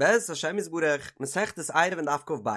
בעזרת השם יתברך, מסכת עירובין דף כ"ב.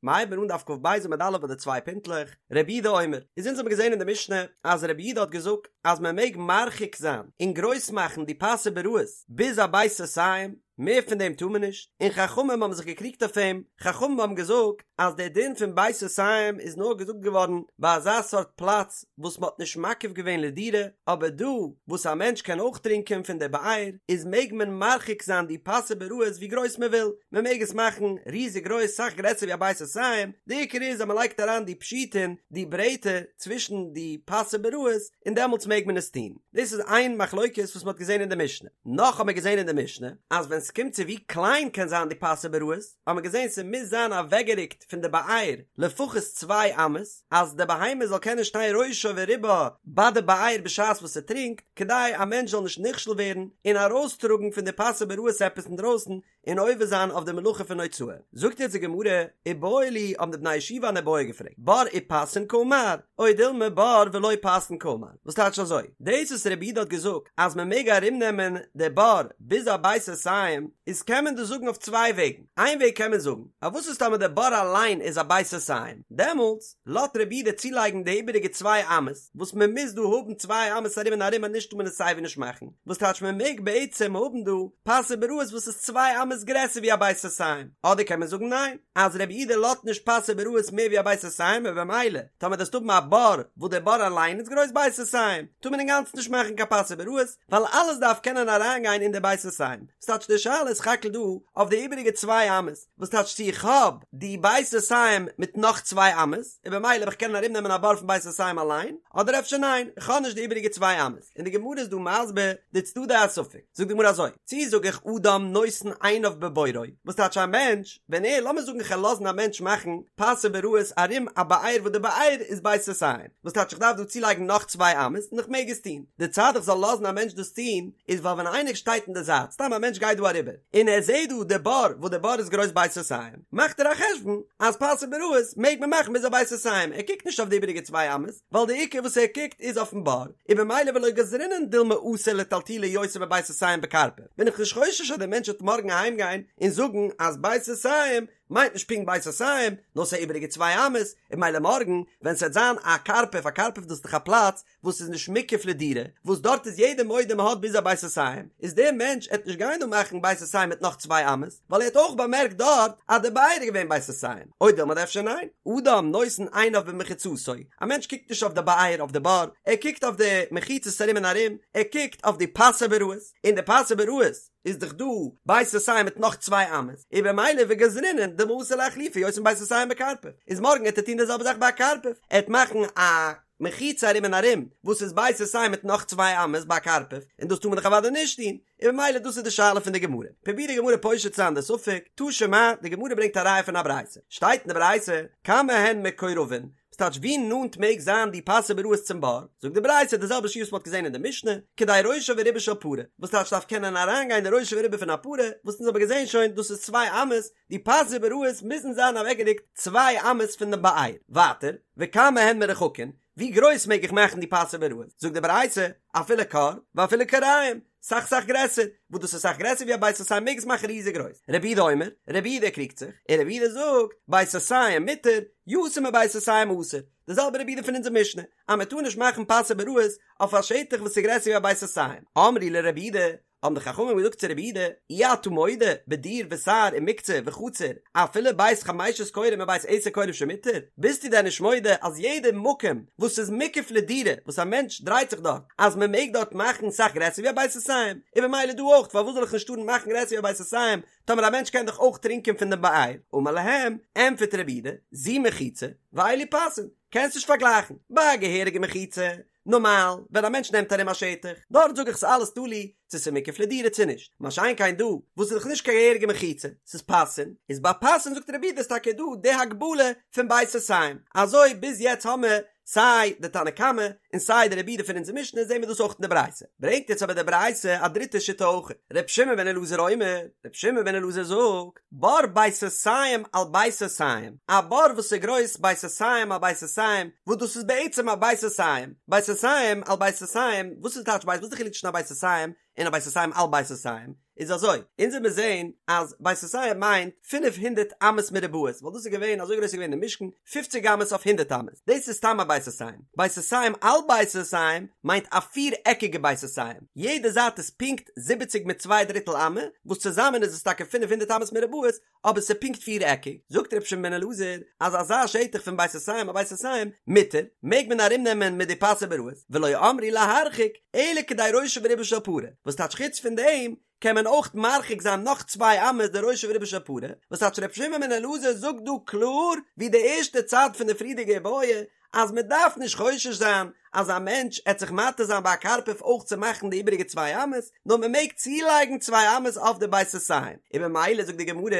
מ'הייבן אן דף כ"ב עמוד א' ביי די צוויי פינטלעך, רבי יהודה אומר, איז אונז האבן געזען אין די משנה אז רבי יהודה האט געזאגט אז מען מעג מרחיק זיין און גרויס מאכן די פסי ביראות ביז א בית סאתים, מער פון דעם טאר מען נישט, און חכמים האבן זיך געקריגט אויף אים, חכמים האבן געזאגט אז דער דין פון בית סאתים איז נאר געזאגט געווארן ביי אזא סארט פלאץ וואס מען האט נישט מקיף געווען לדירה, אבער דא וואס א מענטש קען אויך טרינקען פון דער באר, איז מעג מען מרחיק זיין די פסי ביראות ווי גרויס מען וויל, מען מעג עס מאכן ריזיג גרויס סאך גרעסער ווי א בית סאתים, די עיקר איז אז מען לייגט אריין די פשיטין, די ברעטער, צווישן די פסי ביראות, און דעמאלטס מעג מען עס טון. דאס איז איין מחלוקת וואס מען האט געזען אין די משנה. נאך האט מען געזען אין די משנה, אז ווען ס'קומט צו ווי קליין קען זיין די פסי ביראות, האט מען געזען ס'מוז זיין אוועקגערוקט פון די באר לפחות צוויי אמות, אז די בהמה זאל קענען שטיין ראשה ורובה ביי די באר בשעת וואס ס'טרינקט, כדי א מענטש זאל נישט נכשל ווערן און ארויסטראגן פון די פסי ביראות עפעס אינדרויסן און עובר זיין אויף די מלאכה פון הוצאה. זאגט יעצט די גמרא, איבעיא להו האבן די בני ישיבה אן איבעיא געפרעגט, בור ופסין קאמר, או דילמא בור ולא פסין קאמר, וואס טייטש אזוי? דאס וואס רבי יהודה האט געזאגט אז מען מעג ארומנעמען די בור ביז א בית סאתים, איז קען מען דאס זאגן אויף צוויי וועגן, איין וועג קען מען זאגן, אז וואס איז טאמער די בור אליין איז א בית סאתים, דעמאלטס לאזט רבי יהודה צולייגן די איבעריגע צוויי אמות, וואס מען מוז דא האבן צוויי אמות ארום און ארום אנישט טאר מען עס סייווי נישט מאכן, וואס טייטש מען מעג בעצם האבן דא פסי ביראות וואס איז צוויי אמות גרעסער ווי א בית סאתים, אדער קען מען זאגן ניין, אז רבי יהודה לאזט נישט פסי ביראות מער ווי א בית סאתים און במילא טאמער דו וועסט האבן א בור וואס דער בור אליין איז גרויס בית סאתים טאר מען אינגאנצן נישט מאכן קיין פסי ביראות ווייל אלעס דארף קענען אריינגיין אין די בית סאתים, ס'טייטש די שאלה איז סך הכל דא אויף די איבעריגע צוויי אמות, וואס טייטש צו איך האב די בית סאתים מיט נאך צוויי אמות, און במילא וועל איך קענען ארום נעמען א בור פון בית סאתים אליין, אדער אפשר ניין, איך האב נישט די איבעריגע צוויי אמות, און די גמרא איז דא מסביר די צדדי הספק, זאגט די גמרא אזוי, צי זאג איך אדם נותן עיניו בבורו, וואס טייטש א מענטש, ווען ער, לאמיר זאגן איך וועל לאזן א מענטש מאכן פסי ביראות ארום א באר וואס די באר איז בית סאתים, וואס טייטש איך דארף דא צולייגן נאך צוויי אמות און איך מעג עס טון, די צד איך זאל לאזן א מענטש דאס טון איז ווייל ווען איינער שטייט אין די זייט, סתם א מענטש גייט דא אריבער, און ער זעט דא די בור וואס די בור איז גרויס בית סאתים, מאכט ער א חשבון אז פסי ביראות מעג מען מאכן ביז א בית סאתים, ער קוקט נישט אויף די איבעריגע צוויי אמות, ווייל די עיקר וואס ער קוקט איז אויפן בור, און במילא ולא גזרינן דילמא אתי לטלטולי יותר מבית סאתים בקרפף, בין איך נישט חושש אז דער מענטש וועט מארגן אהיים גיין און זאגן אז בית סאתים מיינט נישט פונקט בית סאתים, נאר ס'איז איבעריגע צוויי אמות, און במילא מארגן ווען ס'וועט זיין א קרפף, א קרפף דאס איז דאך א פלאץ וואס איז נישט מוקף לדירה, וואס דארט איז יעדער מודה מ'האט ביז א בית סאתים, איז דער מענטש עט נישט גיין דא מאכן בית סאתים מיט נאך צוויי אמות, ווייל ער האט אויך באמערקט דארט אז די באר איז געווען בית סאתים, או דילמא אדער אפשר ניין, אדם נותן עיניו במחיצתו, א מענטש קוקט נישט אויף די באר אויף די בור, ער קוקט אויף די מחיצות ארום און ארום, ער קוקט אויף די פסי ביראות, און די פסי ביראות איז דאך דא בית סאתים מיט נאך צוויי אמות, און במילא וגזרינן דילמא אתי לאחלופי יותר מבית סאתים בקרפף, איז מארגן עט ער טון די זעלבע זאך ביי א קרפף, ער עט מאכן א מחיצה ארום און ארום וואס איז בית סאתים מיט נאך צוויי אמות ביי א קרפף, און דאס טאר מען דאך אוודאי נישט טון, און במילא דאס איז די שאלה פון די גמרא. פרובירט די גמרא פושט צו זיין די ספק, תא שמע, די גמרא ברענגט א ראיה פון א ברייתא, שטייט אין די ברייתא, כמה הן מקורבין, וואס טייטש ווי נאנט מעג זיין די פסי ביראות צום בור? זאגט די ברייתא די זעלבע שיעור וואס מ'האט געזען אין די משנה, כדי ראשה ורובה של פרה, וואס טייטש דארף קענען אריינגיין די ראשה ורובה פון א פרה, וואס אונז האבן געזען שוין דאס איז צוויי אמות, די פסי ביראות מוזן זיין אוועקגערוקט צוויי אמות פון דעם באר. ווייטער, וכמה הן מרוחקין, ווי גרויס מעג איך מאכן די פסי ביראות? זאגט די ברייתא, אפילו כור, ואפילו כוריים, סאך סאך גרעסער, וואס דאס איז סאך גרעסער ווי א בית סאתים מעג עס מאכן ריזיג גרויס. רבי יהודה אומר, רבי יהודה קריגט זיך, און רבי יהודה זאגט, בית סאתים מותר, יותר מבית סאתים אסור, די זעלבע רבי יהודה פון אונזער משנה, אז מען טאר נישט מאכן פסי ביראות אויף א שטח וואס איז גרעסער ווי א בית סאתים. אמרו לרבי יהודה, האבן די חכמים געזאגט צו רבי יהודה, אי אתה מודה בדיר וסהר ומוקצה וחצר, אפילו בית חמשת כורים ובית עשר כורים שמותר, ביסטו דען נישט מודה אז יעדע מקום וואס איז מוקף לדירה וואס א מענטש דרייט זיך דארט אז מען מעג דארט מאכן סאך גרעסער ווי א בית סאתים, און במילא דא אויך פארוואס זאל איך נישט טארן מאכן גרעסער ווי א בית סאתים טאמער א מענטש קען דאך אויך טרינקען פון דעם באר, אמר להם, ענטפערט רבי יהודה, זו מחיצה, ואלו פסין, קענסט נישט פארגלייכן, ביי א געהעריגע מחיצה, נארמאל, ווען א מענטש נעמט ארום א שטח, דארט זאג איך ס'איז אלעס תלוי צו ס'איז מוקף לדירה צו נישט, מה שאין כן דא, וואס איז דאך נישט קיין געהעריגע מחיצה, ס'איז פסין, איז ביי פסין זאגט רבי יהודה איז טאקע דא די הגבלה פון בית סאתים, אזוי ביז יעצט האמער סיי די תנא קמא און סיי די רבי יהודה פון אונזער משנה זעהן מיר דאס אויך אין די ברייתא, ברענגט יעצט אבער די ברייתא א דריטע שיטה אויך, ר' שמעון בן אלעזר אומר, ר' שמעון בן אלעזר זאגט, בור בית סאתים על בית סאתים, א בור וואס איז גרויס בית סאתים על בית סאתים, וואס דאס איז בעצם א בית סאתים, בית סאתים על בית סאתים, וואס איז טייטש בית, וואס איז די חילוק צווישן א בית סאתים און א בית סאתים על בית סאתים? איז אזוי, אונז וועט מיר זעהן אז בית סאתים מיינט פינף הונדערט אמות מרובעות, ווייל דאס איז געווען, אזוי גרויס איז געווען די משכן, פופציג אמות אויף הונדערט אמות, דאס איז סתם א בית סאתים. בית סאתים על בית סאתים מיינט א פיר עקיגע בית סאתים, יעדע זייט איז פונקט זיבעציג מיט צוויי דריטל אמה, וואס צוזאמען איז עס טאקע 500 אמות מרובעות, אבער ס'איז פונקט פיר עקיג, זאגט רבי שמעון בן אלעזר אז אזא שטח פון בית סאתים על בית סאתים מותר, מעג מען ארום נעמען מיט די פסי ביראות, ולא אמרו להרחיק אלא כדי ראשו ורובו של פרה, וואס טייטש חוץ פון דעם קען מען אויך מרחיק זיין נאך צוויי אמות די ראשו ורובו של פרה, וואס טייטש רבי שמעון בן אלעזר זאגט דא קלאר ווי די ערשטע צד פון די פריערדיגע איבעיא אז מען דארף נישט חושש זיין אז א מענטש עט זיך מטעה זיין ביי א קרפף אויך צו מאכן די איבעריגע צוויי אמות, נאר מען מעג צולייגן צוויי אמות אויף די בית סאתים, און ממילא זאגט די גמרא,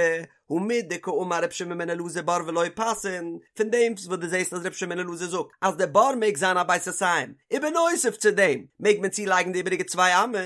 הא מדקאמר רבי שמעון בן אלעזר בור ולא פסין, פון דעם וואס דו זעסט אז רבי שמעון בן אלעזר זאגט אז די בור מעג זיין א בית סאתים, ובנוסף צו דעם מעג מען צולייגן די איבעריגע צוויי אמות,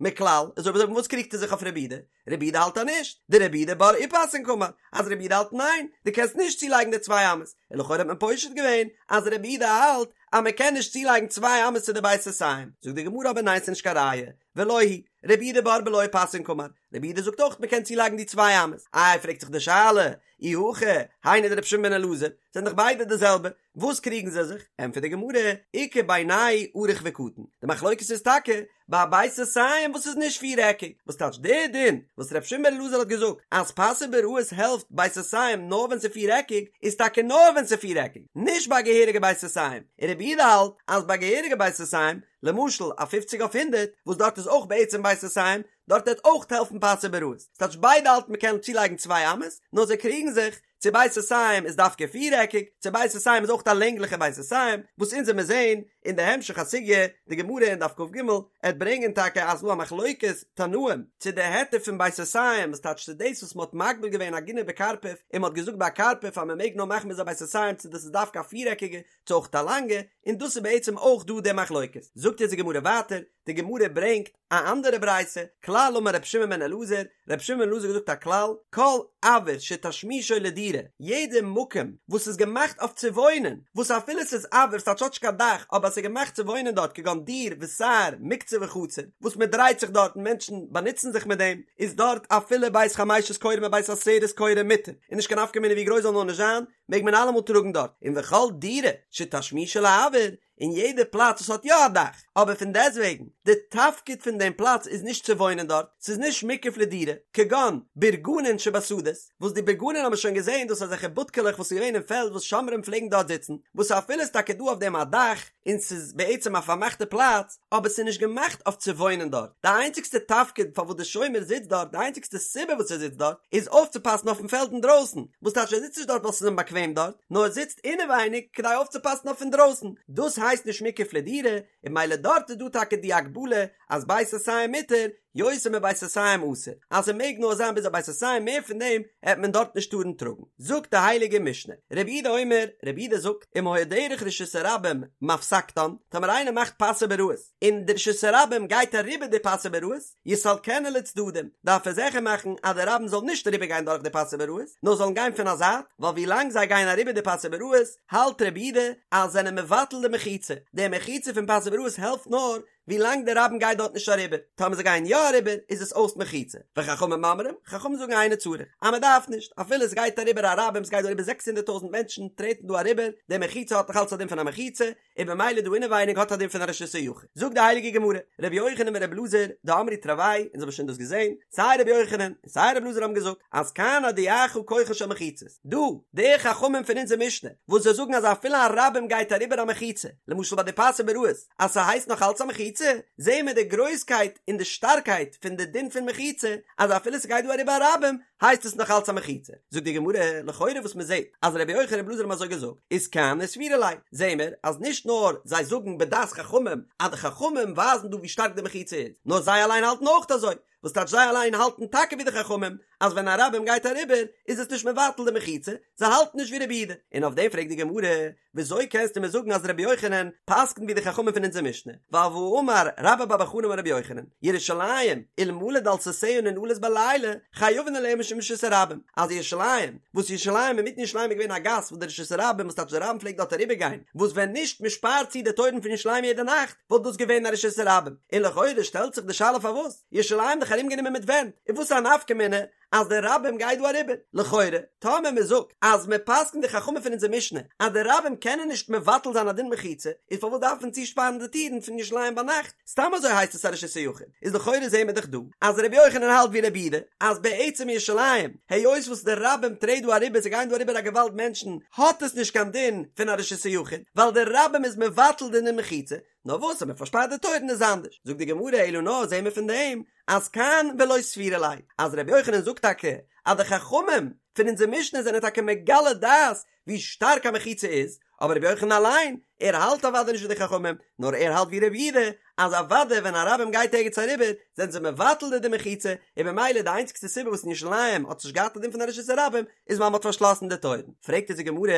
מכלל, איז אויב אזוי וואס קריגט ער זיך אויף רבי יהודה? רבי יהודה האלט אז נישט, דרבי יהודה בור ופסין קאמר, אז רבי יהודה האלט ניין, דו קענסט נישט צולייגן די צוויי אמות, און לכאורה האט מען פושט געווען אז רבי יהודה האלט אז מען קען נישט צולייגן צוויי אמות צו די בית סאתים, זאגט די גמרא אבער ניין ס'איז נישט קיין ראיה, ולא היא, רבי יהודה בור בלא פסין קאמר, רבי יהודה זאגט אויך מען קען צולייגן די צוויי אמות, איי פרעגט זיך די שאלה, אי הכי, היינו דרבי שמעון בן אלעזר, זענען דאך ביידע די זעלבע, וואס קריגן זיי זיך? ענטפערט די גמרא, איכא בינייהו ארוך וקטן, די מחלוקת איז טאקע ביי א בית סאתים וואס איז נישט פיר עקיג, וואס טייטש דער דין וואס ר' שמעון בן אלעזר האט געזאגט אז פסי ביראות העלפט בית סאתים נאר ווען ס'איז פיר עקיג, איז טאקע נאר ווען ס'איז פיר עקיג, נישט ביי א געהעריגע בית סאתים, און רבי יהודה האלט אז ביי געהעריגע בית סאתים, למשל א פופציג אויף הונדערט, וואס דארט איז אויך בעצם בית סאתים, דארט וועט אויך העלפן פסי ביראות, ס'טייטש ביידע האלטן מ'קען צולייגן צוויי אמות, נאר זיי קריגן זיך צו בית סאתים איז דווקא פירעקיג, צו בית סאתים איז אויך א לענגליכע בית סאתים, וואס אונז וועמיר זעהן אין די המשך הסוגיא, די גמרא אין דף כג עט ברענגען טאקע אז ס'דא א מחלוקת תנאים, צו די היתר פון בית סאתים, וואס טייטש צו דאס וואס מ'האט מגביל געווען עגונה בקרפף, און מ'האט געזאגט ביי א קרפף אז מ'מעג נאר מאכן ביז א בית סאתים צו דאס איז דווקא א פירעקיגע, צו אויך א לאנגע, און דאס איז בעצם אויך דא די מחלוקת. זאגט יעצט די גמרא ווייטער, די גמרא ברענגט א אנדערע ברייתא, כלל אמר רבי שמעון בן אלעזר, רבי שמעון בן אלעזר האט געזאגט א כלל, כל אויר שתשמישו לדירה, יעדע מקום וואס איז געמאכט אויף צו וואוינען, וואס אפילו ס'איז אויר ס'טייטש האט נישט קיין דאך, אבער ס'איז געמאכט צו וואוינען דארט כגון דיר וסהר מוקצה וחצר, וואס מען דרייט זיך דארט און מענטשן באנוצן זיך מיט דעם, איז דארט אפילו בית חמשת כורים ובית עשרת כורים מותר, און נישט קיין נפקא מינה ווי גרויס זאל נאר נישט זיין, מעג מען אלעמאל טראגן דארט, און וכל דירה שתשמישה לאויר, און יעדע פלאץ וואס האט יא א דאך, אבער פון דעסטוועגן, די תפקיד פון דעם פלאץ איז נישט צו וואוינען דארט, ס'איז נישט מוקף לדירה, כגון בורגנין שבשדות, וואס די בורגנין האבן מיר שוין געזען דאס אזעלכע בודקעלעך וואס איז געווען אין פעלד וואס שומרים פלעגן דארט זיצן, וואס אפילו איז טאקע דא אויף דעם א דאך, און ס'איז בעצם א פארמאכטע פלאץ, אבער ס'איז נישט געמאכט אויף צו וואוינען דארט, די איינציגסטע תפקיד פארוואס די שומר זיצט דארט, די איינציגסטע סיבה וואס ער זיצט דארט, איז אויפצופאסן אויפן פעלד אינדרויסן, וואס טייטש ער זיצט נישט דארט ווייל ס'איז אים באקוועם דארט, נאר ער זיצט אינעווייניג כדי אויפצופאסן אויף אינדרויסן, דאס הייסט נישט מוקף לדירה, און ממילא דארט איז דא טאקע די הגבלה אז בית סאתים מותר, יותר מבית סאתים אסור, אז ס'מעג נאר זיין ביז א בית סאתים מער פון דעם העט מען דארט נישט טארן טראגן. זאגט די הייליגע משנה, רבי יהודה אומר, רבי יהודה זאגט, אם היה דרך רשות הרבים מפסקתן, טאמער איינער מאכט פסי ביראות, און די רשות הרבים גייט אריבער די פסי ביראות, יסלקנה לצדדים, דארף ער זיכער מאכן אז די רבים זאל נישט אריבער גיין דורך די פסי ביראות, נאר זאלן גיין פון א זייט, ווייל ווי לאנג זיי גייען אריבער די פסי ביראות, האלט רבי יהודה אז זענען מבטל די מחיצה, די מחיצה פון פסי ביראות העלפט נאר ווי לאנג די רבים גייט דארט נישט אריבער, טאמער זיי גייען יא אריבער איז עס אויס מחיצה, וחכמים אומרים, חכמים זאגן אינו צריך, אז מען דארף נישט, אפילו עס גייט אריבער א רבים, עס גייט דא אריבער זעקס הונדערט טויזנט מענטשן טרעטן דא אריבער, די מחיצה האט נאך אלץ א דין פון א מחיצה, און במילא דא אינעווייניג האט א דין פון א רשות היחיד. זאגט די הייליגע גמרא, רבי יוחנן ורבי אלעזר, דאמרי תרוייהו, אונז האבן שוין דאס געזען, סיי רבי יוחנן און סיי רבי אלעזר האבן געזאגט, אז כאן הודיעך כוחן של מחיצות, דא, די חכמים פון אונזער משנה, וואס זיי זאגן אז אפילו א רבים גייט אריבער א מחיצה, למשל ביי די פסי ביראות, אז ס'הייסט נאך אלץ א מחיצה, זעהן מיר די גרויסקייט און די שטארקייט פון די דין פון מחיצה, אז אפילו ס'גייט דא אריבער א רבים, הייסט עס נאך אלץ א מחיצה. זאגט די גמרא, לכאורה וואס מ'זעהט אז רבי יוחנן רבי אלעזר האבן אזוי געזאגט, איז כהני סבירא להו, זעהן מיר אז נישט נאר זיי זאגן בדעת חכמים אז די חכמים ווייזן דא ווי שטארק די מחיצה איז, נאר זיי אליין האלטן אויך אזוי, וואס טייטש זיי אליין האלטן טאקע ווי די חכמים אז ווען א רבים גייט אריבער איז עס נישט מבטל די מחיצה, זיי האלטן נישט ווי רבי יהודה, און אויף דעם פרעגט די גמרא, וויאזוי קענסטו מיר זאגן אז רבי יוחנן פסק'נט ווי די חכמים פון אונזער משנה, ווייל והאמר רבה בר בר חנה אמר רבי יוחנן, ירושלים, אלמלא דלתותיה ננעלות בלילה, חייבין עליה משום רשות הרבים, אז ירושלים, וואס ירושלים אינמיטן ירושלים איז געווען א גאס וואס די רשות הרבים וואס טייטש די רבים פלעגט דארט אריבער גיין, וואס ווען נישט מען שפארט צו די טויערן פון ירושלים יעדע נאכט, וואלט דאס געווען א רשות הרבים, און לכאורה שטעלט זיך די שאלה פארוואס ירושלים דאך? דאך ארומגענומען מיט ווענט, און וואס איז א נפקא מינה אז די רבים גייט דא אריבער? לכאורה, טאמער מען זאגט אז מען פסק'נט די חכמים פון אונזער משנה אז די רבים קענען נישט מבטל זיין א דין מחיצה, איז פארוואס דארף מען צושפארן די טירן פון ירושלים ביינאכט? סתם אזוי הייסט עס א רשות היחיד. איז לכאורה זעהן מיר דאך דא אז רבי יוחנן האלט ווי רבי יהודה אז בעצם ירושלים, היות וואס די רבים טרעט דא אריבער, ס'גייען דא אריבער א געוואלד מענטשן, האט עס נישט קיין דין פון א רשות היחיד, ווייל די רבים איז מבטל די דין מחיצה, נאר וואס אז מען פארשפארט די טויערן איז אנדערש. זאגט די גמרא אלא נאר זעהן מיר פון דעם אז כאן ולא סבירא ליה, אז רבי יוחנן זאגט טאקע אז די חכמים פון אונזער משנה זענען טאקע מגלה דעת ווי שטארק א מחיצה איז, אבער רבי יוחנן אליין, ער האלט אוודאי נישט ווי די חכמים, נאר ער האלט ווי רבי יהודה, אז אוודאי ווען א רבים גייט ערגעץ אריבער, זענען זיי מבטל די דין מחיצה, און במילא די איינציגסטע סיבה וואס אין ירושלים האט עס נישט געהאט א דין פון א רשות הרבים, איז ווייל מען האט פארשלאסן די טויערן. פרעגט אונז די גמרא,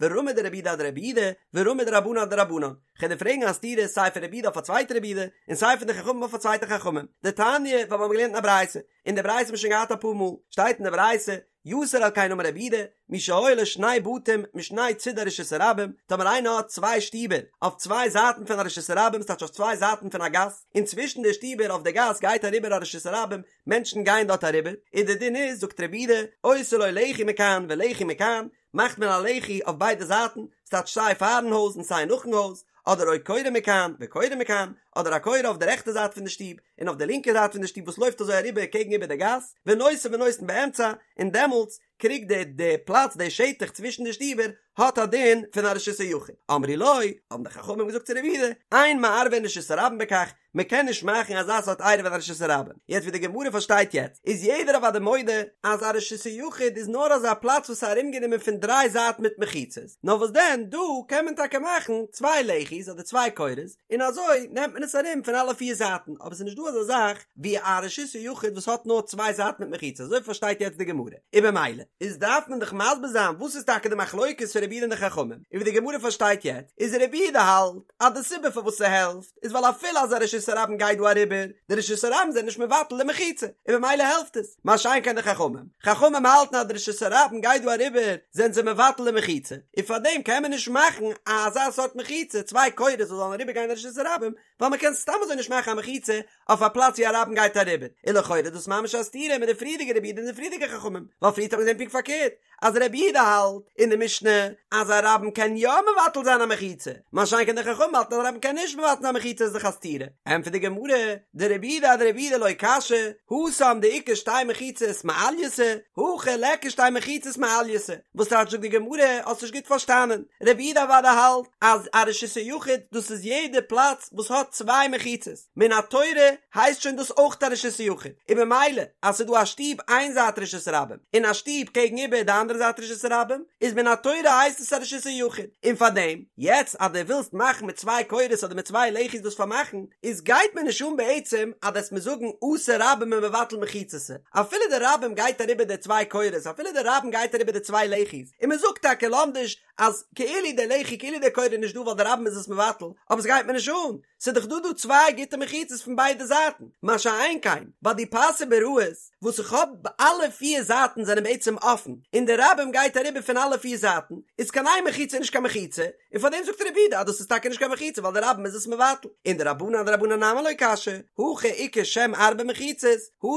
ורמי דרבי יהודה אדרבי יהודה, ורמי דרבנן אדרבנן. כ'וועל דיר פרעגן א סתירה סיי פון רבי יהודה אויף א צווייטע רבי יהודה, און סיי פון די חכמים אויף א צווייטע חכמים. דתניא, ווייל מיר האבן געלערנט אין א ברייתא, און די ברייתא האט מען שוין געהאט אפאר מאל, שטייט אין די ברייתא, יתר על כן אמר רבי יהודה, מי שהיו לו שני בתים משני צידי רשות הרבים, טאמער איינער האט צוויי שטיבער אויף צוויי זייטן פון א רשות הרבים, ס'טייטש אויף צוויי זייטן פון א גאס, און צווישן די שטיבער אויף די גאס גייט אריבער א רשות הרבים, מענטשן גייען דארט אריבער, און די דין איז, זאגט רבי יהודה, עושה לו לחי מכאן ולחי מכאן, מאכט מען א לחי אויף ביידע זייטן, ס'טייטש סיי פארן הויז און סיי נאכן הויז, אדער או קורה מכאן וקורה מכאן, אדער א קורה אויף די רעכטע זייט פון די שטוב און אויף די לינקע זייט פון די שטוב וואס לויפט אזוי אריבער קעגן איבער די גאס, ונושא ונותן באמצע, און דעמאלטס קריגט די די פלאץ די שטח צווישן די שטיבער האט א דין פון א רשות היחיד. אמרו לו, האבן די חכמים געזאגט צו רבי יהודה, אין מערבין רשות הרבים בכך, מען קען נישט מאכן אזא סארט עירוב אין א רשות הרבים. יעצט ווי די גמרא פארשטייט יעצט, איז יעדער אוודאי מודה אז א רשות היחיד איז נאר אזא פלאץ וואס איז ארומגענומען פון דריי זייטן מיט מחיצות, נאר וואס דען דא קען מען טאקע מאכן צוויי לחי'ס אדער צוויי קורות, און אזוי נעמט מען עס ארום פון אלע פיר זייטן, אבער ס'איז נישט דא אזא זאך ווי א רשות היחיד וואס האט נאר צוויי זייטן מיט מחיצות, אזוי פארשטייט יעצט די גמרא. און במילא איז דארף מען דאך מסביר זיין וואס איז טאקע די מחלוקת פון רבי יהודה און די חכמים, און ווי די גמרא פארשטייט יעצט איז רבי יהודה האלט אז די סיבה פארוואס ס'העלפט איז ווייל אפילו אז א רשות הרבים גייט דא אריבער, די רשות הרבים זענען נישט מבטל די מחיצה, און במילא העלפט עס, מה שאין כן די חכמים, חכמים האלטן אז די רשות הרבים גייט דא אריבער זענען זיי מבטל די מחיצה, און פארדעם קען מען נישט מאכן אזא סארט מחיצה, צוויי קורות וואס זאלן אריבער גיין רשות הרבים, ווייל מען קען סתם אזוי נישט מאכן א מחיצה אויף א פלאץ ווי א רבים גייט אריבער, און לכאורה איז דאס ממש א סתירה מיט די פריערדיגע רבי יהודה און די פריערדיגע חכמים, ווייל פריערט האט מען געזען פונקט פארקערט, אז רבי יהודה האלט אין די משנה אז א רבים קען יא מבטל זיין א מחיצה, מה שאין כן די חכמים האלטן אז א רבים קען נישט מבטל זיין א מחיצה איז דאך א סתירה, ענטפערט די גמרא, דרבי יהודה אדרבי יהודה לא קשיא, התם דאיכא שתי מחיצות מעלייתא, הכא ליכא שתי מחיצות מעלייתא, וואס טייטש זאגט די גמרא, האסט נישט גוט פארשטאנען, רבי יהודה אוודאי האלט אז א רשות היחיד דאס איז יעדע פלאץ וואס האט צוויי מחיצות, מן התורה הייסט שוין דאס אויך א רשות היחיד, און במילא אז ס'איז דא א שטוב איין זייט רשות הרבים און א שטוב קעגן איבער די אנדערע זייט רשות הרבים, איז מן התורה הייסט עס א רשות היחיד, און פארדעם יעצט אז דו ווילסט מאכן מיט צוויי קורות אדער מיט צוויי לחי'ס דאס פארמאכן, איז גייט מיר נישט אן בעצם אז דו וועסט מיר זאגן אתא רבים ומבטל מחיצתא, אפילו די רבים גייט אריבער די צוויי קורות אפילו די רבים גייט אריבער די צוויי לחי'ס, און מ'זאגט טאקע לומדיש אז כאילו די לחי כאילו די קורה איז נישט דא ווייל די רבים איז עס מבטל, אבער ס'גייט מיר נישט אן, ס'איז דאך דא דא צוויי גוטע מחיצות פון ביידע זייטן, מה שאין כן ביי די פסי ביראות וואס איך האב אלע פיר זייטן זענען בעצם אפן און די רבים גייט אריבער פון אלע פיר זייטן, איז קיין איין מחיצה נישט קיין מחיצה, און פאר דעם זאגט רבי יהודה אז דאס איז טאקע נישט קיין מחיצה ווייל די רבים איז עס מבטל, און דרבנן אדרבנן נמי לא קשיא, הכא איכא שם ארבע מחיצות,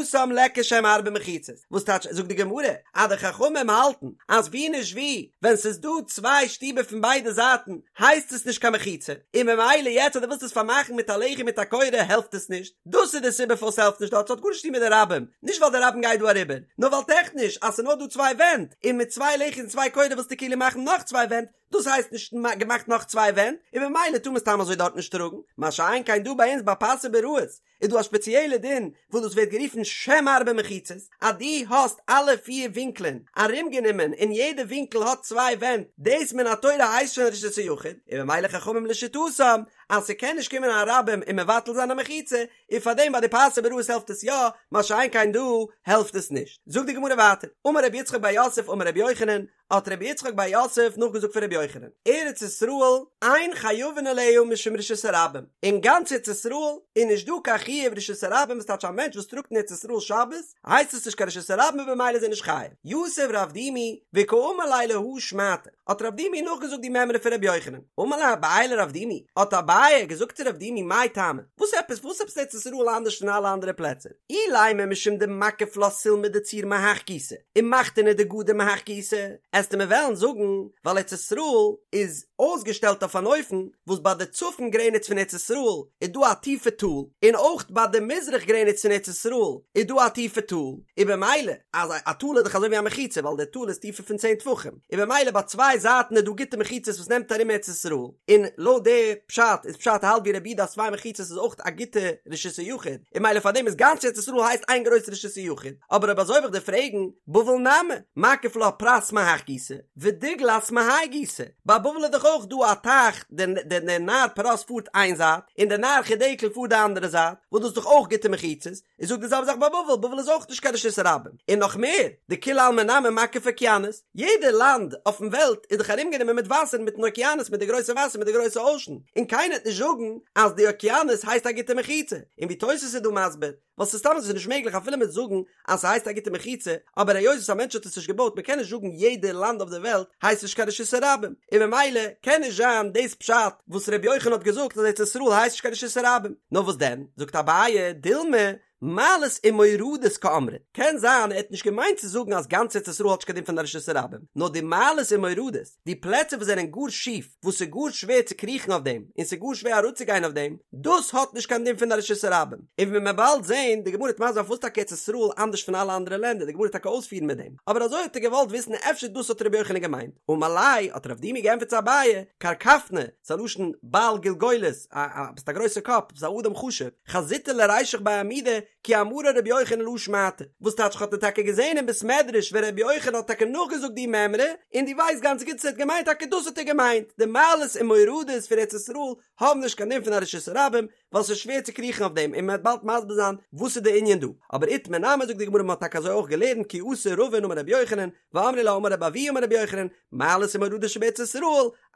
התם ליכא שם ארבע מחיצות, וואס טייטש זאגט די גמרא אז די חכמים האלטן אז ווי נישט ווי ווען ס'איז דא צוויי שטיבער פון ביידע זייטן הייסט עס נישט קיין מחיצה, און ממילא יעצט אז דו ווילסט עס פארמאכן מיט א לחי מיט א קורה העלפט עס נישט, דאס איז די סיבה פארוואס ס'העלפט נישט דארט, ס'האט גארנישט צו טון מיט די רבים, נישט ווייל די רבים גייט דא אריבער, נאר ווייל טעכניש אז ס'איז נאר דא צוויי ווענט, און מיט צוויי לחי און צוויי קורה ווילסטו כאילו מאכן נאך צוויי ווענט, דאס הייסט נישט געמאכט נאך צוויי ווענט, און ממילא טאר מען סתם אזוי דארט נישט טראגן, מה שאין כן דא ביי אונז ביי פסי ביראות איז דא א שפעציעלע דין וואס דאס ווערט גערופן שם ארבע מחיצות, אז דו האסט אלע פיר ווינקלען ארומגענומען און יעדע ווינקל האט צוויי ווענט, דאס מן התורה הייסט שוין רשות היחיד, און ממילא חכמים לשיטתם אז ס'קען נישט קומען א רבים און מבטל זיין א מחיצה, און פארדעם ביי די פסי ביראות העלפט עס יא, מה שאין כן דא העלפט עס נישט. זאגט די גמרא ווייטער, אמר רבי יצחק בר יוסף אמר רבי יוחנן, האט רבי יצחק בר יוסף נאכגעזאגט פון רבי יוחנן, ארץ ישראל אין חייבין עליה משום רשות הרבים, אין גאנץ ארץ ישראל איז נישט דא קיין חיוב רשות הרבים וואס טייטש א מענטש וואס טראגט אין ארץ ישראל שבת הייסט עס נישט קיין רשות הרבים און במילא איז ער נישט חייב. יתיב רב דימי וקאמר ליה להא שמעתא. האט רב דימי נאכגעזאגט די מימרא פון ר' יוחנן. אמר ליה אביי לרב דימי, האט אביי געזאגט צו רב דימי מאי טעמא, וואס עפעס וואס עפעס ארץ ישראל אנדערש פון אלע אנדערע פלעצער? אילימא משום דמקיף לה סולמא דצור מהך גיסא, ומחתנא דגדר מהך גיסא, עסטו מיר וועלן זאגן ווייל ארץ ישראל איז אויסגעשטעלט אויף אן אופן וואס ביי די צפון גרעניץ פון ארץ ישראל איז דא א טיפע טאל, און אויך ביי די מזרח גרעניץ פון ארץ ישראל איז דא א טיפע טאל, און במילא אז א טאל איז דאך אזוי ווי א מחיצה ווייל די טאל איז טיפער פון צען טפחים, און במילא ביי צוויי זייטן איז דא גוטע מחיצות וואס נעמט ארום ארץ ישראל, און לויט די פשט איז פשט האלט ווי רבי יהודה אז צוויי מחיצות איז אויך א גוטע רשות היחיד, און במילא פארדעם איז גאנץ ארץ ישראל הייסט איין גרויסע רשות היחיד, אבער אויב אזוי וועל איך דיר פרעגן, בבל נמי, מקיף לה פרת מהך גיסא, ודיגלת מהאי גיסא, ביי בבל איז דאך אויך דא א טייך, דער נהר פרת פארט איין זייט, און דער נהר חידקל פארט די אנדערע זייט, וואס דאס איז דאך אויך גוטע מחיצות, איז זאג די זעלבע זאך ביי בבל, בבל איז אויך נישט קיין רשות הרבים, און נאך מער, דכולי עלמא נמי מקיף אוקיינוס, יעדע לאנד אויפן וועלט איז דאך ארומגענומען מיט וואסער מיטן אוקיינוס מיט די גרויסע וואסער מיט די גרויסע אושען, און קיינער וועט נישט זאגן אז די אוקיינוס הייסט א גוטע מחיצה, און ווי תוס' איז דא מסביר, ווייל ס'איז סתם אזוי נישט מעגליך אפילו מ'וועט זאגן אז ס'הייסט א גוטע מחיצה, אבער היות וואס א מענטש האט עס נישט געבויט מ'קען נישט זאגן יעדע לאנד אויף די וועלט הייסט נישט קיין רשות הרבים, און ממילא קען נישט זיין דאס פשט וואס ר' יוחנן האט געזאגט אז ארץ ישראל הייסט נישט קיין רשות הרבים, נאר וואס דען, זאגט אביי, דילמא, מעלות ומורדות קאמרת, קען זיין ער האט נישט געמיינט צו זאגן אז גאנץ ארץ ישראל האט נישט קיין דין פון א רשות הרבים, נאר די מעלות ומורדות, די פלעצער וואס זענען גאר שיף, וואס ס'איז גאר שווער צו קריכן אויף דעם, און ס'איז גאר שווער אראפצוגיין אויף דעם, דאס האט נישט קיין דין פון א רשות הרבים. און ווי מ'וועט באלד זען, די גמרא וועט מסביר זיין פארוואס טאקע ארץ ישראל אנדערש פון אלע אנדערע לענדער, די גמרא וועט טאקע אויספירן מיט דעם, אבער אזוי האט ער געוואלט וויסן אפשר דאס האט רבי יוחנן געמיינט. אמר ליה, האט רב דימי געענטפערט צו אביי, קרקפנא, ס'איז א לשון בעל גולגולת, א א ביסט א גרויסער קאפ, ביסט א אדם חשוב, חזיתיה לרישך בי עמודי, כי אמרה רבי יוחנן להא שמעתא, וואס טייטש כ'האב דיר טאקע געזען אין בית מדרש ווען רבי יוחנן האט טאקע נאכגעזאגט די מימרא, און דו ווייסט גאנץ גוט אז ער האט געמיינט טאקע דאס האט ער געמיינט, די מעלות און מורדות פון ארץ ישראל האבן נישט קיין דין פון א רשות הרבים, ווייל ס'איז שווער צו קריכן אויף דעם, און מ'וועט באלד מסביר זיין וואס איז די ענין דא, אבער איתמר נמי זאגט די גמרא מ'האט טאקע אזוי אויך געלערנט כי אתא רבין אמר רבי יוחנן, ואמרי לה אמר רבי אבהו אמר רבי יוחנן, מעלות ומורדות שבארץ ישראל,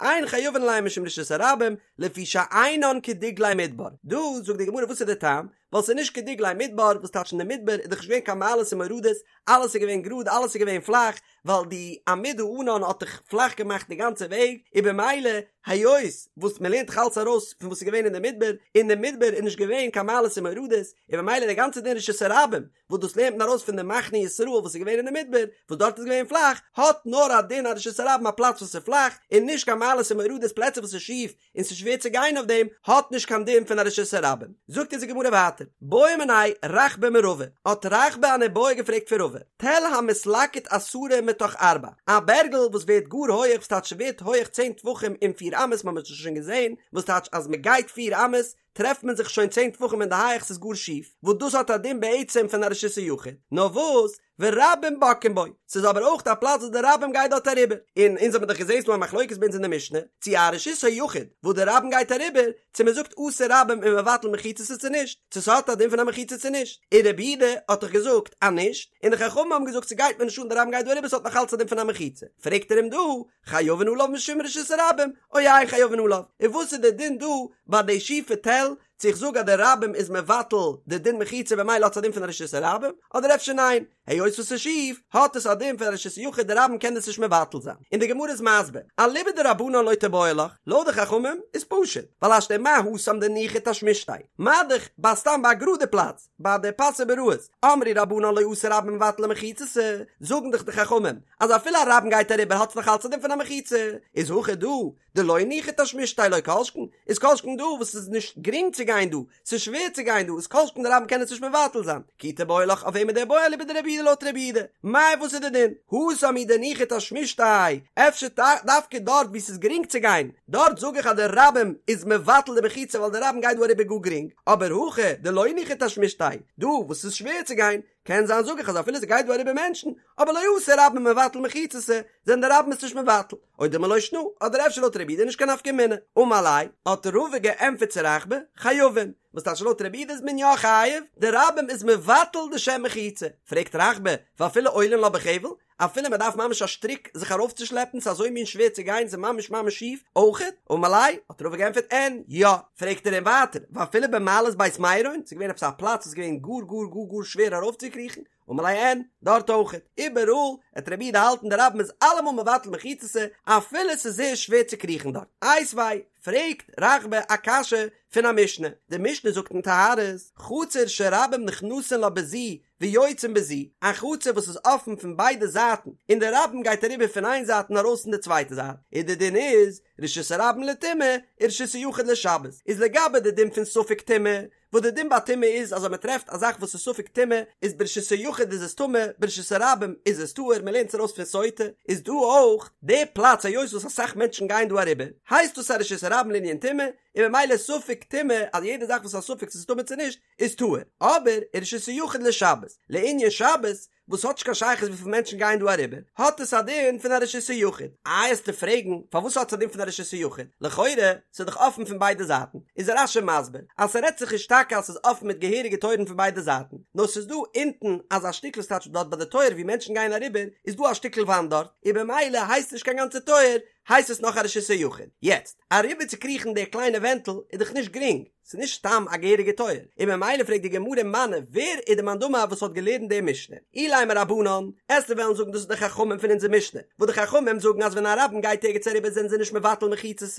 אין חייבין עליהן משום רשות הרבים, לפי שאינן כדגלי מדבר, דא זאגט די גמרא וואס איז די טעם, ווייל ס'איז נישט כדגלי מדבר, וואס טייטש אין די מדבר איז דאך נישט געווען קיין מעלות און מורדות, אלעס איז געווען גראד אלעס איז געווען פלאך, ווייל די עמוד הענן האט דאך פלאך געמאכט די גאנצע וועג, און במילא היות וואס מ'לערנט דאך אלץ ארויס פון וואס איז געווען אין די מדבר, אין די מדבר איז נישט געווען קיין מעלות און מורדות, און במילא די גאנצע דין רשות הרבים, וואס דאס לערנט מען ארויס פון די מחנה ישראל וואס איז געווען אין די מדבר, וואס דארט איז געווען פלאך, האט נאר א דין א רשות הרבים א פלאץ וואס איז פלאך, און נישט קיין מעלות און מורדות פלעצער וואס איז שיף, און ס'איז שווער צו גיין אויף דעם, האט נישט קיין דין פון א רשות הרבים. זאגט אונז די גמרא ווייטער, בעא מיניה רחבה מרבא, האט רחבה אן איבעיא געפרעגט פון רבא, תל המתלקט עשרה מתוך ארבע, א בערגל וואס ווערט גאר הויעך, וואס טייטש ס'ווערט הויעך צען טפחים אין פיר אמות, מ'האט עס שוין געזען, וואס טייטש אז מ'גייט פיר אמות, טרעפט מען זיך שוין צען טפחים אין די הייעך ס'איז גאר שיף, וואס דאס האט א דין בעצם פון א רשות היחיד, נאר וואס, ורבים בוקעין בו, ס'איז אבער אויך א פלאץ וואס די רבים גייט דארט אריבער, און אונז האבן דאך געזען ס'דא א מחלוקת ביי אונז אין די משנה, צו א רשות היחיד וואס די רבים גייט אריבער, צו מ'זאגט אתו רבים ומבטלי מחיצתא צו נישט, צו ס'האט א דין פון א מחיצה צו נישט, און רבי יהודה האט דאך געזאגט אז נישט, און די חכמים האבן געזאגט ס'גייט מיר נישט אן די רבים גייט דא אריבער ס'האט נאך אלץ א דין פון א מחיצה, פרעגט ער אים דא, חייבין עליו משום רשות הרבים, או אין חייבין עליו, און וואס איז די דין דא ביי די שיפע תל, צו איך זאג אז די רבים איז מבטל די דין מחיצה במילא האט עס א דין פון א רשות הרבים, אדער אפשר ניין, היות וואס ס'איז שיף, האט עס א דין פון א רשות היחיד די רבים קען דאס נישט מבטל זיין. און די גמרא איז מסביר, אליבא דרבנן לא תיבעי לך, לויט די חכמים איז פשוט, ווייל השתא מה התם דניחא תשמישתיה, מה דאך ביי סתם ביי א גראדע פלאץ, ביי די פסי ביראות, אמרי רבנן לא אתו רבים ומבטלי מחיצתא, זאגן דאך די חכמים אז אפילו א רבים גייט אריבער האט עס נאך אלץ א דין פון א מחיצה, איז הכא דא דלא ניחא תשמישתיה לא כל שכן, איז כל שכן דא וואס ס'איז נישט גרינג צו גיין דא, ס'איז שווער צו גיין דא, איז כל שכן די רבים קען עס נישט מבטל זיין, כי תיבעי לך אויף וועם איז די בעיא אליבא דרבי יהודה לויט רבי יהודה, מאי וואס איז די דין? התם הוא דניחא תשמישתיה, אפשר דווקא דארט וואו ס'איז גרינג צו גיין, דארט זאג איך אז די רבים איז מבטל די מחיצה ווייל די רבים גייט דא אריבער גאר גרינג, אבער הכא דלא ניחא תשמישתיה, דא וואס ס'איז שווער צו גיין, קען זיין זאג איך אז אפילו ס'גייט דא אריבער מענטשן, אבער לא אתו רבים ומבטלי מחיצתא, זענען די רבים עס נישט מבטל, או דילמא לא שנא, אדער אפשר לויט רבי יהודה נישט קיין נפקא מינה. אמר ליה, האט רבא געענטפערט צו רחבה, חייבין, וואס טייטש לויט רבי יהודה איז מען יא חייב, די רבים איז מבטל די שם מחיצה, פרעגט רחבה, ואפילו עולין לה בחבל, אפילו מען דארף ממש א שטריק זיך ארויפצושלעפן ס'איז אזוי מין שווער צו גיין ס'איז ממש ממש שיף, אויכעט? אמר ליה, האט רבא געענטפערט אין, יא. פרעגט ער אים ווייטער, ואפילו במעלות בית מרון, ס'איז געווען עפעס א פלאץ וואס איז געווען גאר גאר גאר גאר שווער ארויפצוקריכן? אמר ליה אין, דארט אויכעט, איבעראל וועט רבי יהודה האלטן די רבים איז אלעמאל מבטל מחיצתא אפילו ס'איז זייער שווער צו קריכן דארט. איתיביה, פרעגט רחבה א קשיא פון א משנה, די משנה זאגט אין טהרות, חצר שרבים נכנסין לה בזו ויוצאין בזו, א חצר וואס איז אפן פון ביידע זייטן און די רבים גייט אריבער פון איין זייט און ארויס אין די צווייטע זייט, איז די דין איז, רשות הרבים לטומאה, ורשות היחיד לשבת, איז לגבי די דין פון ספק טומאה, וואס די דין ביי טומאה איז אז אויב מען טרעפט א זאך וואס איז ספק טומאה, איז ברשות היחיד איז עס טמא, ברשות הרבים איז עס טהור, מען לערנט עס ארויס פון סוטה, איז דא אויך די פלאץ היות וואס אסאך מענטשן גייען דא אריבער, הייסט דאס א רשות הרבים לענין טומאה, און ממילא ספק טומאה אז יעדע זאך וואס איז א ספק צו ס'איז טמא צו נישט, איז טהור, אבער רשות היחיד לשבת, לענין שבת, וואס האט נישט קיין שייכות וויפיל מענטשן גייען דא אריבער, האט עס א דין פון א רשות היחיד. איי עסטו פרעגן פארוואס האט עס א דין פון א רשות היחיד, לכאורה ס'איז דאך אפן פון ביידע זייטן, איז רש"י מסביר אז ס'רעדט זיך נישט טאקע אז ס'איז אפן מיט געהעריגע טויערן פון ביידע זייטן, נאר ס'איז דא אונטן אזא שטיקל ס'טייטש דארט ביי די טויער ווי מענטשן גייען אריבער איז דא א שטיקל וואנט דארט, און במילא הייסט נישט קיין גאנצע טויער, הייסט עס נאך א רשות היחיד. יעצט, אריבער צו קריכן די קליינע ווענטל איז דאך נישט גרינג, ס'איז נישט סתם א געהעריגע טויער, און ממילא פרעגט די גמרא מני, ווער איז די מאן דאמר וואס האט געלערנט די משנה? אילימא רבנן, עסטו וועלן זאגן דאס איז די חכמים פון אונזער משנה, וואס די חכמים זאגן אז ווען א רבים גייט ערגעץ אריבער זענען זיי נישט מבטל מחיצות,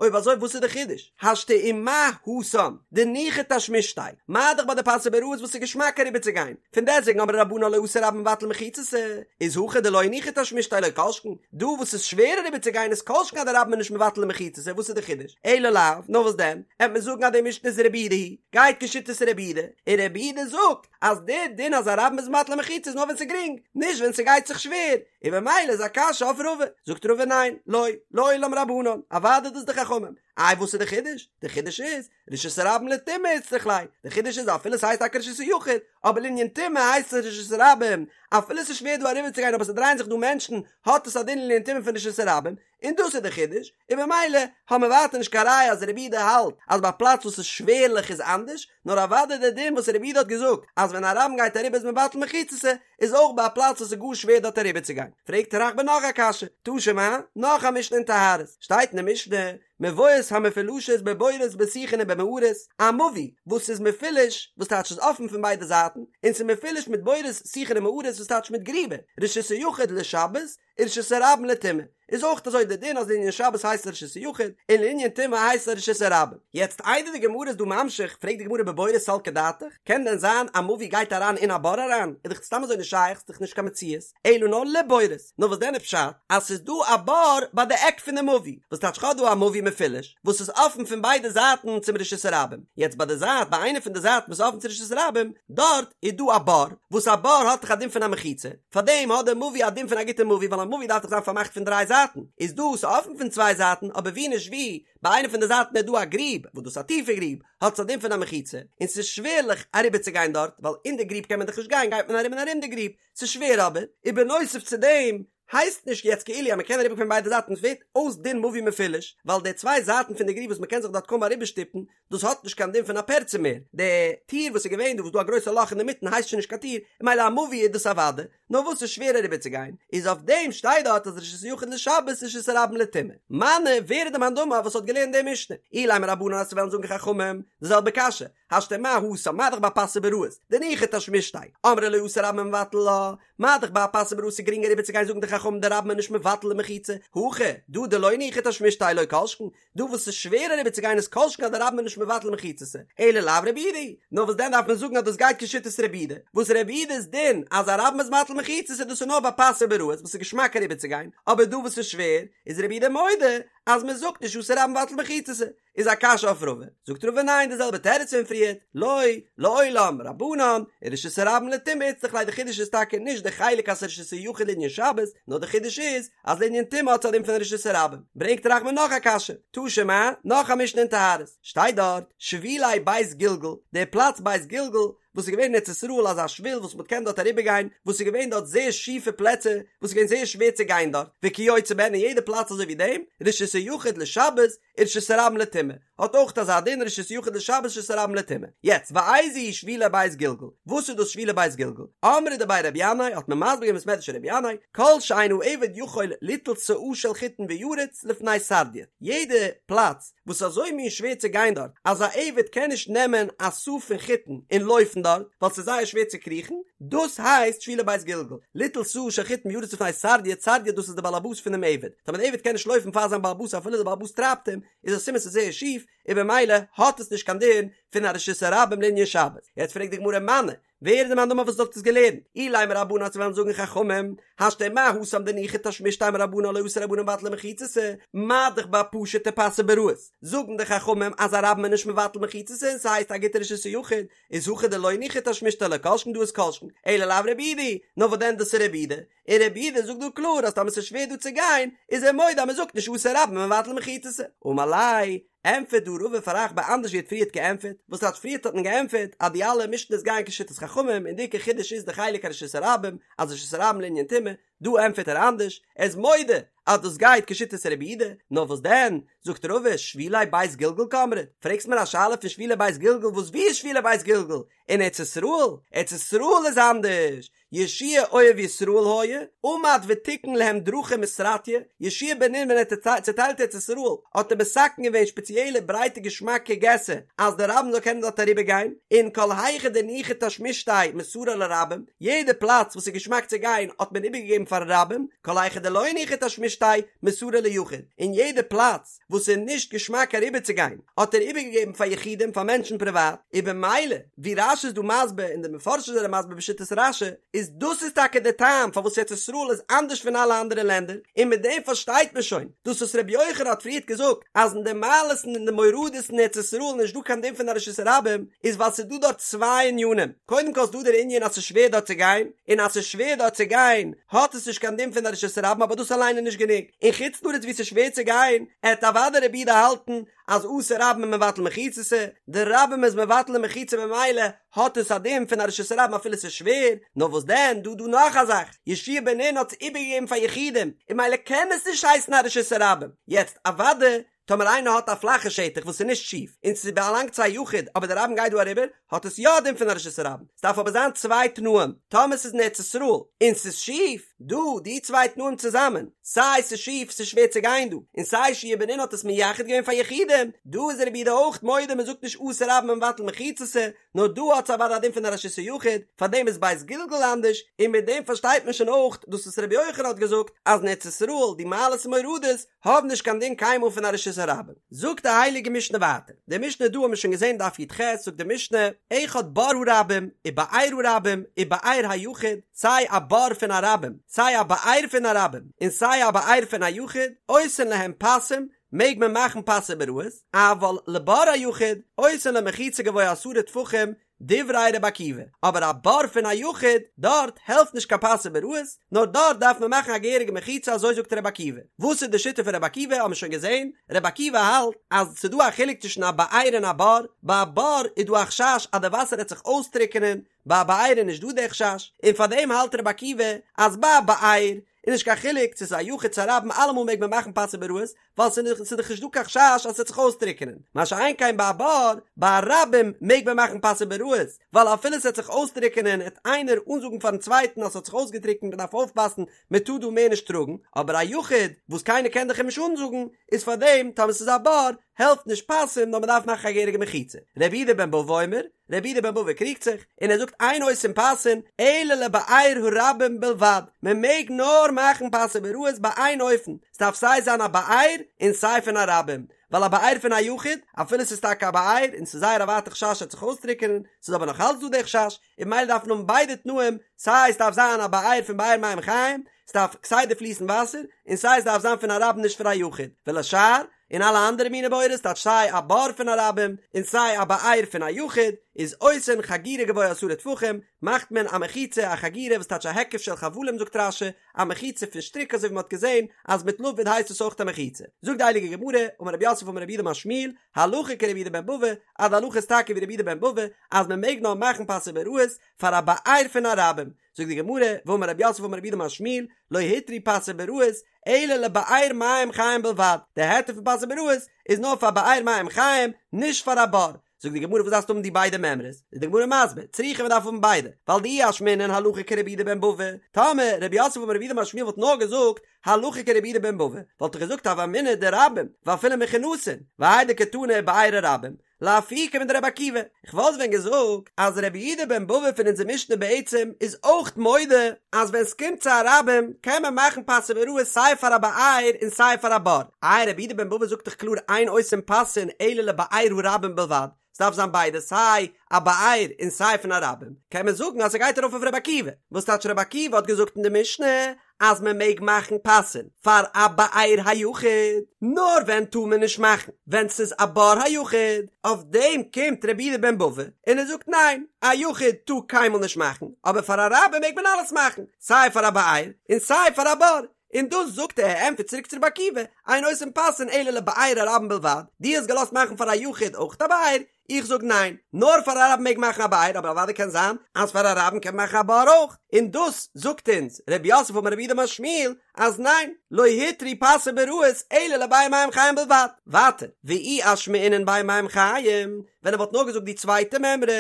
אויב אזוי וואס איז די חידוש? השתא ומה התם דניחא תשמישתיה, מה דאך ביי די פסי ביראות וואס איז געשמאק אריבער צו גיין, פון דעסטוועגן אמרי רבנן לא אתו רבים מבטלי מחיצתא, איז הכא דלא ניחא תשמישתיה לא כל שכן, דא וואס איז שווער אריבער צו גיין איז כל שכן אז די רבים איז נישט מבטל די מחיצתא, וואס איז די חידוש? אלא לאו, נאר וואס דען? עט מען זאגן אז די משנה איז רבי יהודה היא, גייט כשיטת רבי יהודה, און רבי יהודה זאגט אז די דין אז א רבים איז מבטל מחיצה איז נאר ווען ס'איז גרינג, נישט ווען ס'גייט זיך שווער, און במילא איז א קשיא אויף רבא, זאגט רבא ניין, לא, לעולם רבנן, אוודאי דאס די חכמים, איי וואס איז די חידוש? די חידוש איז, רשות הרבים לטומאה איצטריך ליה, די חידוש איז אפילו ס'הייסט טאקע רשות היחיד, אבער לענין טומאה הייסט עס רשות הרבים, אפילו ס'איז שווער דא אריבערצוגיין אבער ס'דרייען זיך דא מענטשן, האט עס א דין לענין טומאה פון רשות הרבים, און דאס איז די חידוש, און במילא האבן מיר ווייטער נישט קיין ראיה אז רבי יהודה האלט אז ביי א פלאץ וואס איז שווערליך איז אנדערש, נאר אוודאי די דין וואס רבי יהודה האט געזאגט אז ווען א רבים גייט אריבער איז מבטל מחיצתא, איז אויך ביי א פלאץ וואס איז גאר שווער דארט אריבערצוגיין. פרעגט רחבה נאך א קשיא, תא שמע, נאך א משנה אין טהרות, שטייט אין די משנה, מבואות המפולשות בבורות בשיחין ובמערות, א מבוי וואס איז מפולש, וואס טייטש איז אפן פון ביידע זייטן, און ס'איז מפולש מיט בורות שיחין און מערות וואס טייטש מיט גריבער, רשות היחיד לשבת, ורשות הרבים לטומאה, איז אויך אזוי די דין אז לענין שבת הייסט עס רשות היחיד, און לענין טומאה הייסט עס רשות הרבים. יעצט איידער די גמרא איז דא ממשיך, פרעגט די גמרא בבורות סלקא דעתך, קען דען זיין א מבוי גייט אריין אין א בור אריין? איז דאך סתם אזוי נישט שייך, ס'איז דאך נישט קיין מציאות, אלא נאר לבורות, נאר וואס דען איז פשט אז ס'איז דא א בור ביי די עק פון די מבוי, וואס טייטש כ'האב דא א מבוי מפולש וואס איז אפן פון ביידע זייטן צום רשות הרבים, יעצט ביי די זייט ביי איינע פון די זייטן וואס איז אפן צו רשות הרבים, דארט איז דא א בור, וואס א בור האט דאך א דין פון א מחיצה, פארדעם האט די מבוי א דין פון א גוטע מבוי ווייל א מבוי דארף דאך זיין פארמאכט פון דריי זייטן, איז דא ס'אפן פון צוויי זייטן אבער ווי נישט ווי ביי איינע פון די זייטן איז דא א גריב וואס דאס איז א טיפע גריב האט עס א דין פון א מחיצה און ס'איז שווערליך אריבערצוגיין דארט ווייל אין די גריב קען מען דאך נישט גיין גייט מען ארום און ארום די גריב ס'איז שווער אבער ובנוסף צו דעם הייסט נישט יעצט כאילו אז מ'קען אריבער פון ביידע זייטן ס'ווערט אויס דין מבוי מפולש ווייל די צוויי זייטן פון די גריב וואס מ'קען זיך דארט קוים אריבערשטופן דאס האט נישט קיין דין פון א פרצה מער, די טיר וואס איז געווען דא וואס דא א גרויסע לאך אינדערמיטן הייסט שוין נישט קיין טיר, און ממילא א מבוי איז דאס אוודאי, נאר וואס איז שווער אריבער צו גיין, איז אויף דעם שטייט דארט אז רשות היחיד לשבת רשות הרבים לטומאה. מני, ווער איז די מאן דאמר וואס האט געלערנט די משנה? אילימא רבנן אז ס'וועלן זאגן חכמים, די זעלבע קשיא, השתא מה התם, מה דאך ביי פסי ביראות, דניחא תשמישתיה, אמרי לא אתו רבים ומבטלי לה, מה דאך ביי א פסי ביראות איז גרינג אריבער צו גיין זאגן די חכמים די רבים איז נישט מבטל די מחיצה, הכא, דא דלא ניחא תשמישתיה לא כל שכן, דא וואס ס'איז שווער אריבער צו גיין איז כל שכן אז די רבים איז נישט מבטל מחיצתא, אלא לאו רבי יהודה היא, נאר וואס דען דארף מען זאגן אז דאס גייט כשיטת רבי יהודה, וואס רבי יהודה'ס דין אז א רבים איז מבטל מחיצות איז דאס איז נאר ביי פסי ביראות וואס איז געשמאק אריבער צו גיין, אבער דא וואס איז שווער איז רבי יהודה מודה אז מען זאגט נישט אתו רבים מבטלי מחיצתא, איז א קשיא אויף רבא, זאגט רבא ניין די זעלבע תירוץ פון פריערט, לא, לעולם, רבנן, ורשות הרבים לטומאה איצטריך ליה די חידוש איז טאקע נישט די חלק אז ס'איז רשות היחיד לענין שבת, נאר די חידוש איז אז לענין טומאה האט עס א דין פון רשות הרבים. ברענגט רחבה נאך א קשיא, תא שמע, נאך א משנה אין טהרות, שטייט דארט, שבילי בית גלגל, דער פלאץ בית גלגל, וואס איז געווען אין ארץ ישראל אזא שביל וואס מען קען דארט אריבער גיין, וואס איז געווען דארט זייער שיפע פלעצער, וואס איז געווען זייער שווער צו גיין דארט, וכיוצא בהן אין יעדע פלאץ אזוי ווי דעם, רשות היחיד לשבת, ורשות הרבים לטומאה, האט אויך אזא דין רשות יחיד לשבת רשות הרבים לטומאה. יעצט, ואיזו היא שבילי בית גלגל? וואס איז דאס שבילי בית גלגל? אמרי דבי רבי ינאי האט מען מסביר געווען בית מדרש רבי ינאי, כל שאין העבד יכול ליטול סאה של חיטין וירוץ לפני סרדיוט, יעדע פלאץ וואס איז אזוי מין שווער צו גיין דארט אז א עבד קען נישט נעמען א סאה פון חיטין און לויפן דארט. דארט, ווייל ס'איז זייער שווער צו קריכן, דאס הייסט שבילי בית גלגל, ליטול סאה של חיטין וירוץ לפני סרדיא, סרדיא דאס איז די בעל הבית פונעם עבד, טאמער די עבד קען נישט לויפן פאר זיין בעל הבית אפילו די בעל הבית טרייבט אים, איז א סימן ס'איז זייער שיף, און במילא האט עס נישט קיין דין פון א רשות הרבים לענין שבת. יעצט פרעגט די גמרא מני, ווער איז די מאן דאמר וואס האט עס געלערנט? אילימא רבנן אז מיר וועלן זאגן חכמים, השתא מה התם דניחא תשמישתיה אמור רבנן לא אתו רבנן מבטלי מחיצתא, מה דאך ביי פשוטע פסי ביראות, זאגן די חכמים אז א רבים איז נישט מבטל מחיצתא און ס'הייסט א גוטע רשות היחיד, איז הכא דלא ניחא תשמישתיה לא כל שכן דא איז כל שכן, אלא לאו רבי יהודה, נאר וואס דען דאס איז רבי יהודה, און רבי יהודה זאגט דא קלאר אז טאמער ס'איז שווער דא צו גיין, איז ער מודה אז מ'זאגט נישט אתו רבים מבטלי מחיצתא. אמר ליה, ענטפערט דא רבא פאר אחבא אנדערש ווי ער האט פריערט געענטפערט, וואס האט פריערט האט מען געענטפערט אז די אלע משנה'ס גייען כשיטת חכמים און די עיקר חידוש איז די חלק הרשות הרבים אז רשות הרבים לענין טומאה, דא ענטפערט ער אנדערש, ער איז מודה אז דאס גייט כשיטת רבי יהודה, נאר וואס דען, זאגט רבא, שבילי בית גלגל קאמרת, פרעגסט מיר א שאלה פון שבילי בית גלגל וואס ווי איז שבילי בית גלגל? אין ארץ ישראל? ארץ ישראל איז אנדערש, יהושע אוהב ישראל היה, עמד ותיקן להם דרכים וסרטיא, יהושע בן נון ווען ער האט צעטיילט ארץ ישראל האט ער מתקן געווען שפעציעלע ברייטע געשמאקע געסער אז די רבים זאל קענען דארט אריבער גיין, און כל היכא דניחא תשמישתיה מסרה לרבים, יעדע פלאץ וואס איז געשמאק צו גיין האט מען איבערגעגעבן פארן רבים, כל היכא דלא ניחא תשמישתיה מסרה ליחיד, און יעדע פלאץ וואס איז נישט געשמאק אריבערצוגיין האט ער איבערגעגעבן פאר יחידים פאר מענטשן פריוואט, און במילא ווי רש"י איז דא מסביר און די מפרשים זענען מסביר בשיטת רש"י איז דאס איז טאקע די טעם פארוואס ארץ ישראל איז אנדערש פון אלע אנדערע לענדער, און מיט דעם פארשטייט מען שוין דאס וואס רבי יוחנן האט פריערט געזאגט אז אין די מעלות און אין די מורדות אין ארץ ישראל איז נישט דא קיין דין פון א רשות הרבים, איז ווייל ס'איז דא דארט צוויי ענינים, קודם כל איז דא דער ענין אז ס'איז שווער דארט צו גיין, און אז ס'איז שווער דארט צו גיין האט עס נישט קיין דין פון א רשות הרבים אבער דאס אליין איז נישט גענוג, אין חוץ לארץ וואו ס'איז שווער צו גיין, עט אוודאי רבי יהודה האלטן אז אתו רבים מבטלי מחיצתא, די רבים איז מבטל די מחיצה ממילא האט עס א דין פון א רשות הרבים אפילו ס'איז שווער, נאר וואס דען דא דא נאך א זאך, יהושע בן נון האט עס איבערגעגעבן פאר יחידים, און ממילא קען עס נישט הייסן א רשות הרבים, יעצט אוודאי טאמער איינער האט א פלאכע שטח וואס איז נישט שיף און ס'באלאנגט צו א יחיד אבער די רבים גייט דא אריבער האט עס יא א דין פון א רשות הרבים, ס'דארף אבער זיין צוויי תנאים, טאמער ס'איז אין ארץ ישראל און ס'איז שיף, דא די צוויי תנאים צוזאמען, סיי ס'איז שיף ס'איז שווער צו גיין דא, און סיי יהושע בן נון האט עס מייחד געווען פאר יחידים, דא איז רבי יהודה אויך מודה מ'זאגט נישט אתו רבים מבטלי מחיצתא, נאר דא האט עס אוודאי א דין פון א רשות היחיד, פארדעם איז בית גלגל אנדערש, און מיט דעם פארשטייט מען שוין אויך דאס וואס רבי יוחנן האט געזאגט אז אין ארץ ישראל די מעלות און מורדות האבן נישט קיין דין קיינמאל פון א רשות הרבים. זאגט די הייליגע משנה ווייטער, די משנה דא האבן מיר שוין געזען דף י"ח, זאגט די משנה, אחד בור הרבים ובאר הרבים ובאר היחיד, סיי א בור פון א רבים, סיי א באר פון א רבים, און סיי א באר פון א יחיד, עושין להם פסים, מעג מען מאכן פסי ביראות, אבל לבור היחיד, עושין לו מחיצה גבוה עשרה טפחים, דברי רבי עקיבא, אבער א בור פון א יחיד, דארט העלפט נישט קיין פסי ביראות, נאר דארט דארף מען מאכן א געהעריגע מחיצה אזוי זאגט רבי עקיבא. וואס איז די שיטה פון רבי עקיבא האבן מיר שוין געזען, רבי עקיבא האלט אז ס'איז דא א חילוק צווישן א באר און א בור, ביי א בור איז דא א חשש אז די וואסער העט זיך אויסטריקענען, ביי א באר איז נישט דא די חשש, און פארדעם האלט רבי עקיבא אז ביי א באר איז נישט קיין חילוק צו ס'איז א יחיד צו א רבים אלעמאל מעג מען מאכן פסי ביראות, ווייל ס'איז דאך נישט דא קיין חשש אז ס'וועט זיך אויסטריקענען, מה שאין כן ביי א בור, ביי א רבים מעג מען מאכן פסי ביראות, ווייל אפילו ס'וועט זיך אויסטריקענען העט איינער אנזאגן פארן צווייטן אז ס'האט זיך אויסגעטריקנט מ'דארף אויפפאסן מ'טאר דא מער נישט טראגן, אבער א יחיד וואס קיינער קען דאך אים נישט אנזאגן, איז פארדעם טאמער ס'איז א בור העלפט נישט פסים נאר מ'דארף מאכן א געהעריגע מחיצה. רבי יהודה בן בבא אומר, רבי יהודה בן בבא קריגט זיך, און ער זאגט אין עושין פסין אלא לבאר הרבים בלבד, מען מעג נאר מאכן פסי ביראות ביי איין אופן, ס'דארף סיי זיין א באר און סיי פון א רבים, ווייל א באר פון א יחיד, אפילו ס'איז טאקע א באר און ס'איז זייער א ווייטע חשש ס'וועט זיך אויסטריקענען, ס'איז אבער נאך אלץ דא די חשש, און ממילא דארף מען האבן ביידע תנאים, סיי ס'דארף זיין א באר פון באר מים חיים, ס'דארף כסדר פליסן וואסער, און סיי ס'דארף זיין פון א רבים נישט פון א יחיד, ולשאר, און אלע אנדערע מיני בורות טייטש סיי א בור פון א רבים און סיי א באר פון א יחיד איז עושין חגורה גבוה עשרה טפחים מאכט מען א מחיצה א חגורה וואס טייטש א היקף של חבלים זאגט רש"י א מחיצה פון שטריק אזוי ווי מען האט געזען אז מיט לבוד הייסט עס אויך א מחיצה זאגט די הייליגע גמרא אמר רב יוסף אמר רב יהודה אמר שמואל הלכה כרבי יהודה בן בבא אז די הלכה איז טאקע ווי רבי יהודה בן בבא אז מען מעג נאר מאכן פסי ביראות פאר א באר פון א רבים זאגט די גמרא, ואמר רב יוסף אמר רב יהודה אמר שמואל, לא הותרו פסי ביראות, אלא לבאר מים חיים בלבד, די היתר פון פסי ביראות איז נאר פאר באר מים חיים, נישט פאר א בור. זאגט די גמרא וואס דארפסטו האבן די ביידע מימרות? איז די גמרא מסביר, צריכא מען דארף האבן ביידע, ווייל דאי אשמעינן הלכה כרבי יהודה בן בבא, טאמער רב יוסף אמר רב יהודה אמר שמואל וואלט נאר געזאגט הלכה כרבי יהודה בן בבא, וואלט איך געזאגט הוה אמינא דרבים, ואפילו מכונסין, והאי דקתני באר הרבים. לאפוקי מדרבי עקיבא, איך וואלט ווען געזאגט אז רבי יהודה בן בבא פון אונזער משנה בעצם איז אויך מודה אז ווען סקומט צו א רבים קען מען מאכן פסי ביראות סיי פאר א באר און סיי פאר א בור, איי רבי יהודה בן בבא זאגט דאך קלאר אין עושין פסין אלא לבאר הרבים בלבד, ס'דארף זיין ביידע סיי א באר און סיי פון א רבים, קען מען זאגן אז ס'גייט ארויף אויף רבי עקיבא, וואס טייטש רבי עקיבא האט געזאגט אין די משנה אז מען מעג מאכן פסין פאר א באר היחיד, נאר ווען טאר מען נישט מאכן? ווען ס'איז א בור היחיד, אויף דעם קומט רבי יהודה בן בבא און ער זאגט ניין, א יחיד טאר קיינמאל נישט מאכן, אבער פאר א רבים מעג מען אלעס מאכן, סיי פאר א באר און סיי פאר א בור, און דאס זאגט ער, ער ענטפערט צוריק צו רבי עקיבא, אין עושין פסין אלא לבאר הרבים בלבד, דו האסט געלאזט מאכן פאר א יחיד אויך א באר, איך זאג ניין, נאר פאר א רבים מעג מאכן א באר, אבער אוודאי קען זיין אז פאר א רבים קען מען מאכן א בור אויך, און דאס זאגט אונז רב יוסף אמר רב יהודה אמר שמואל אז ניין, לא הותרו פסי ביראות אלא לבאר מים חיים בלבד. ווייטער, ואי אשמעינן באר מים חיים, ווען ער וואלט נאר געזאגט די צווייטע מימרא,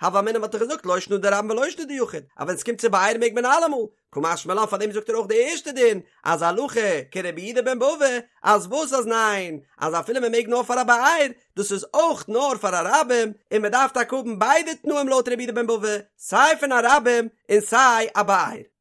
הוה אמינא וואלט איך געזאגט לא שנא דרבים ולא שנא דיחיד, אז ווען עס קומט צו באר מעג מען אלעמאל, קא משמע לן פארדעם זאגט ער אויך די ערשטע דין אז הלכה כרבי יהודה בן בבא אז וואס אז ניין אז אפילו מען מעג נאר פאר א באר דאס איז אויך נאר פאר א רבים און מען דארף טאקע האבן ביידע תנאים לויט רבי יהודה בן בבא סיי פון א רבים און סיי א באר.